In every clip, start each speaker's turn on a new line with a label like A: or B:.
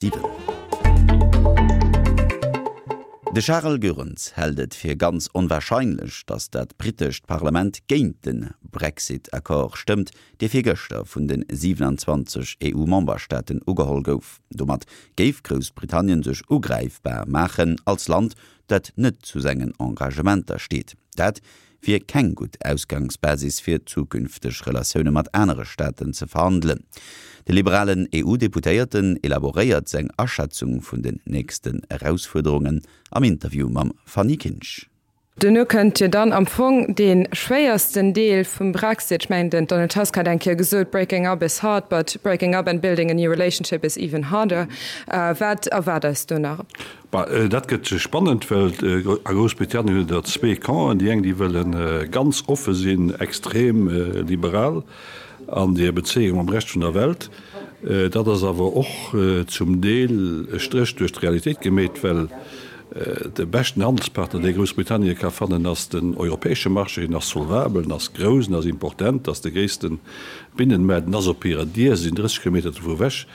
A: 7. De Charel Goerens hält et fir ganz onwarscheinlech, datt dat britescht Parlament géint de Brexit-Accord stëmmt, dee virgëschter vun de 27 EU-Memberstaaten ugeholl gouf. Domat géif Groussbritannien sech ugräifbar maachen als Land, dat net zu sengen Engagementer steet. Dat wier keng gutt Ausgangsbasis fir zukünfteg Relatioune mat anere Staaten ze verhandelen. De liberalen EU-Deputéierten elaboréiert seng Aschätzung vun den nächsten Erausfuerderungen am Interview mam Fanny Kinsch.
B: Duerno kënnt jo dann am Fong dee schwéiersten Deel vum Brexit. Ech mengen, den Donald Tusk hat eng Kéier gesot, Breaking up is hard, but breaking up and building a new relationship is even harder. Wat erwaart eis do nach?
C: Bah, dat gëtt spannend, well a Groussbritannien hutt Der zwee Campen. Déi eng, déi wëlle ganz offe sinn, extrem liberal an hir Bezéiung mam Rescht vun der Welt. Dat ass awer och zum Deel e Stréch duerch d'Realitéit gemeet, well de beschten Handelspartner, dee Groussbritannien ka fannen, ass den europäesche Marché. En ass solvabel, en ass grouss, en ass important, ass de gréisste Binnenmaart, en ass op hirer Dier, se sinn 30 Kilometer dovu ewech.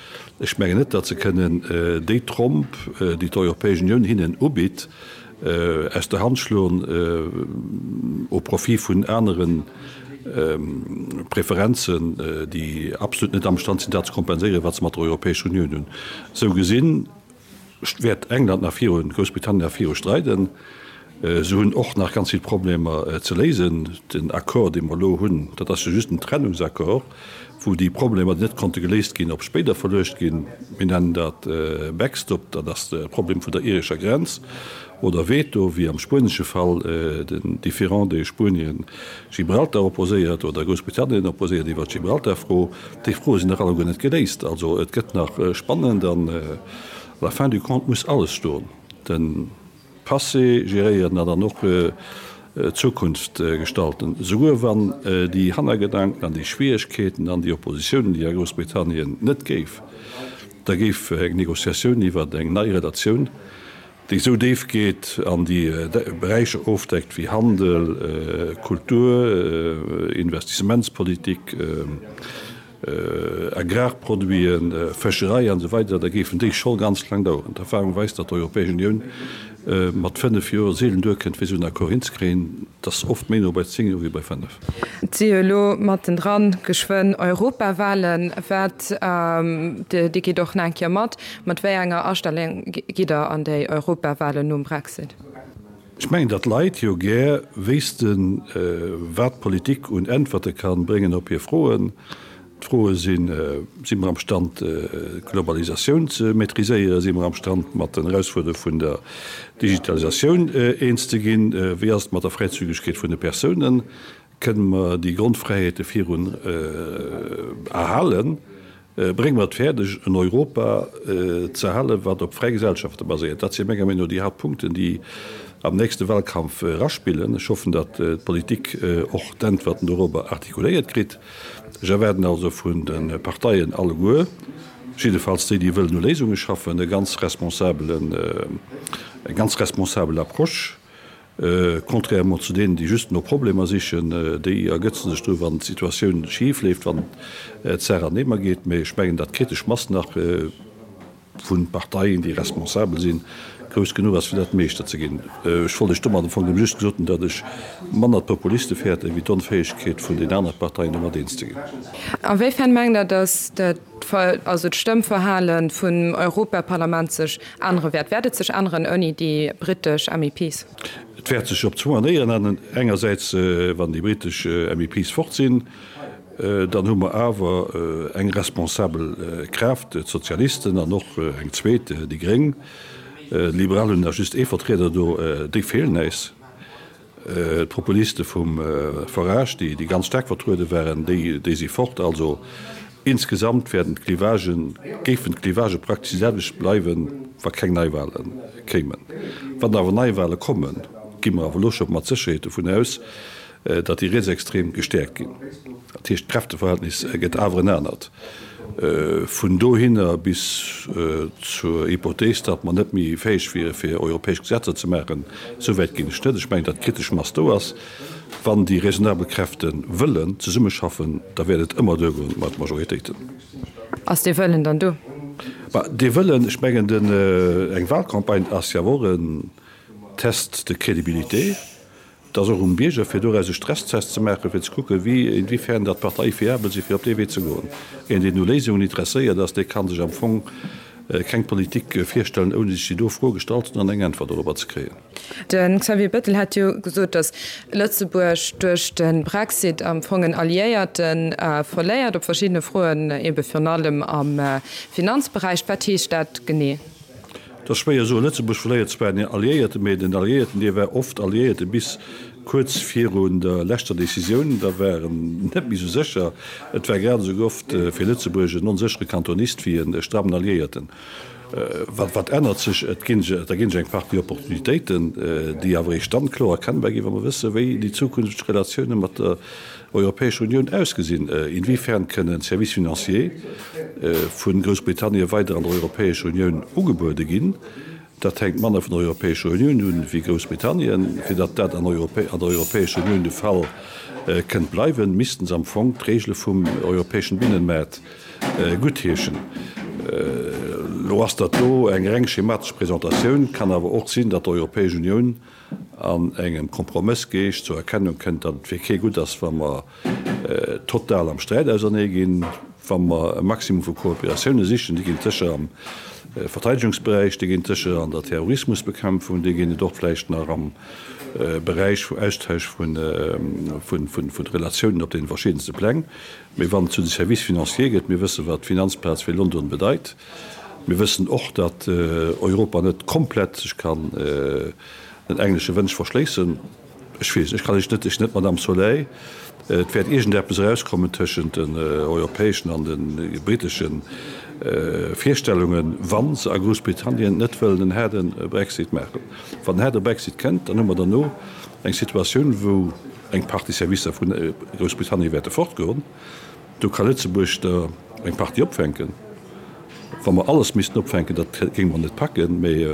C: Ech mengen net, datt se kënnen déi Tromp, déi d'Europäesch Unioun hinnen ubitt, aus der Hand schloen au profit vun anere Preferenzen, déi absolut net amstand sinn, dat ze kompenséieren, wat se mat der Europäescher Unioun hunn. Esou gesinn wäert England nach virun, Groussbritannien nach viru streiden. Se hunn och nach ganz vill Problemer ze léisen. Den Accord, dee mer elo hunn, dat ass jo just en Trennungsaccord, wou déi Problemer, déi net konnte geléist ginn, op spéider verluecht ginn. Mir nennen dat Backstop, dat ass de Problem vun der irescher Grenz, oder Veto, wéi am spuenesche Fall, den Différend, dee Spuenien Gibraltar opposéiert oder Groussbritannien opposéiert iwwert d'Gibraltar-Fro. Déi Froe sinn nach alleguer net geléist. Also et gëtt nach spannend an à la fin du compte muss alles stoen. Den. Passé geréieren an dann och d'Zukunft gestalten, souguer wann déi Hannergedanken an déi Schwieregkeeten an déi Oppositiounen, déi a Groussbritannien net géif, da géif eng Négociatioun iwwert eng nei Relatioun, déi esou déif geet an déi Beräicher ofdeckt wéi Handel, Kultur, Investissementspolitik, Agrarproduiten, Fëscherei an esou weider, da géifen déi scho ganz laang daueren. D'Erfahrung weist, datt d'Europäesch Unioun mat 5 Joer seelen duerkënnt, fir esou en Accord hinzekréien. Et ass oft méi no bei 10 Joer wéi bei 5.
B: Et si jo elo mattendran geschwënn Europawahlen. Wat, Dir gitt och nach eng Kéier mat, mat wéi enger Astellung gitt Der an déi Europawahlen nom Brexit?
C: Ech mengen, datt d'Leit jo gär wéissten, wat d'Politik un Äntwerte ka bréngen op hir Froen. D'Froe sinn, Si mer am Stand, d'Globalisatioun ze maîtriséieren? Si mer am Stand, mat den Erausfuerderunge vun der Digitalisatioun eens ze ginn? Wéi ass et mat der Fräizügegkeet vun de Persounen? Kënne mer déi Grondfräiheete virun erhalen? Brénge mer et fäerdeg, en Europa ze erhalen, wat op fräi Gesellschafte baséiert? Dat si menger Meenung no déi Haaptpunkten, déi am nächste Wahlkampf eraspillen. Ech hoffen, datt d'Politik och d'Äntwerten dorobber artikuléiert kritt. Ech erwaarden also vun de Parteien alleguer, jiddefalls déi, déi wëllen u Léisunge schaffen, e ganz responsabelen, eng ganz responsabel Approche. Contrairement zu deenen, déi just no Problemer sichen, déi ergëtzen sech dru wann d'Situatioun schif leeft, wann d'Saach an Eemer geet. Mee ech mengen, datt d'kritesch Mass nach vu Parteien, déi responsabel sinn, grouss genuch ass, fir dat meeschter ze ginn. Ech wollt lech domat am Fong nëmme just gesot hunn, datt ech manner d'Populiste fäerten, wéi d'Onfäegkeet vun den anere Parteien, domat eens ze ginn.
B: A wéifern mengt Der, datt also d'Stëmmverhale vum Europaparlament sech ännere wäert? Wäert et sech änneren ouni déi britesch MEPs?
C: Et wäert sech op zwou Manéieren änneren. Engersäits, wann déi britesch MEPs fort sinn, dann hu mer awer eng responsabel Kraaft, d'Sozialisten, an och eng zweet, déi Gréng. D'Liberal hunn nach just ee Vertrieder do, déi feelen äis. D'Populiste vum Farage, déi ganz staark vertruede waren, déi si fort. Also insgesamt wäerten d'Clivagen, géifen d'Clivagë praktesch déi selwecht bleiwen, wa keng Neiwale kéimen. Wann awer Neiwale kommen, gi mer awer elo scho mat Sécherheet dovun aus, datt déi Rietsextrem gestäerkt ginn. Dat heescht, d'Kräfteverhältnis gëtt awer en anert. Vun dohinner bis zur Hypothees, datt mer net méi fäeg wiere fir europäesch Gesetzer ze maachen, esou wäit ginn ech net. Ech mengen, datt d'kritesch Mass do ass. Wann déi raisonnabel Kräfte wëllen zesummeschaffen, da wäert et ëmmer duergoen mat Majoritéiten.
B: Ass dee Wëllen dann do?
C: Bah, dee Wëllen, ech mengen, den, eng Wahlcampagne ass jo awer och en Test de crédibilité. Et ass och um Bierger, fir doraus e Stresstest ze maachen, fir ze kucken, wéi, inwiefern datt d'Parteie fiabel sinn, fir op dee Wee ze goen. Een, deen u Léisungen interesséiert ass, dee ka sech am Fong keng Politik virstellen, ouni sech déi do Fro gestallt ze hunn an eng Äntwert dorobber ze kréien.
B: De Xavier Bettel hat jo gesot, datt Lëtzebuerg duerch de Brexit am Fong en Alliéierte verléiert op verschiddene Froen, ebe virun allem am Finanzberäich. Wat heescht dat genee?
C: Et ass schwéier soen. Lëtzebuerg verléiert zwar en Alliéierten, mee den Alliéierten, dee war oft Alliéierte bis kuerz virun der leschter Decisioun. Da war en net méi esou sécher. Et war grad esou oft fir Lëtzebuerg en onséchere Kantonist wéi e strammen Alliéierten. Wat, wat ännert sech? Et ginn, da ginn sech eng Partie Opportunitéiten, déi awer eréischt dann kloer erkennbar ginn, wa mer wëssen, wéi déi zukünfteg Relatioune mat der Europäescher Unioun ausgesinn? Inwiefern kënnen Services financiers vu Groussbritannien weider an der Europäescher Unioun ugebuede ginn? Dat hänkt manner vun der Europäescher Unioun un wéi Groussbritannien. Fir datt dat an der Europäescher Unioun de Fall kënnt bleiwen, missten se am Fong d'Regele vum europäeschen Binnenmaart guttheeschen. Elo ass dat do eng reng schematesch Presentatioun, kann awer och sinn, datt d'Europäesch Unioun an engem Kompromëssgeescht zur Erkennung kënnt, datt et fir kee gutt ass, wa mer total am Sträit ausernee ginn, wa mer e Maximum vu Kooperatioune sichen. Déi ginn et sécher am Verteidegungsberäich, déi ginn et sécher an der Terrorismusbekämpfung, déi ginn et och vläicht nach am Beräich vu Austausch vu Relatiounen op deene verschiddenste Pläng. Mee wann et zu de Services financiers gëtt, mir wëssen, wat d'Finanzplaz fir London bedeit, Mir wëssen och, datt Europa net komplett sech kann den englesche Wënsch verschléissen. Ech weess, ech kann Iech net, ech sinn net d'Madame Soleil, et wäert iergendeppes erauskommen tëschent den europäeschen an de britesche Virstellungen, wa se a Groussbritannien net wëllen en haarde Brexit maachen. Wann en haarde Brexit kënnt, dann hu mer derno eng Situatioun, wou eng Partie Servicer vu Groussbritannien wäerte fortgoen. Do ka Lëtzebuerg der eng Partie opfänken. Wa mer alles missten opfänken, dat géinge mer net packen, mee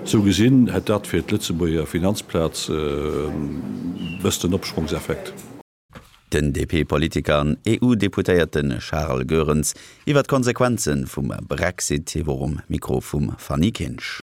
C: esou gesinn hätt dat fir d'Lëtzebuerger Finanzplaz e bëssen Opschwongseffekt.
A: Den DP-Politiker an EU-Deputéierte Charles Goerens iwwer d'Konsequenze vum Brexit. Hie wor um Mikro vum Fanny Kinsch.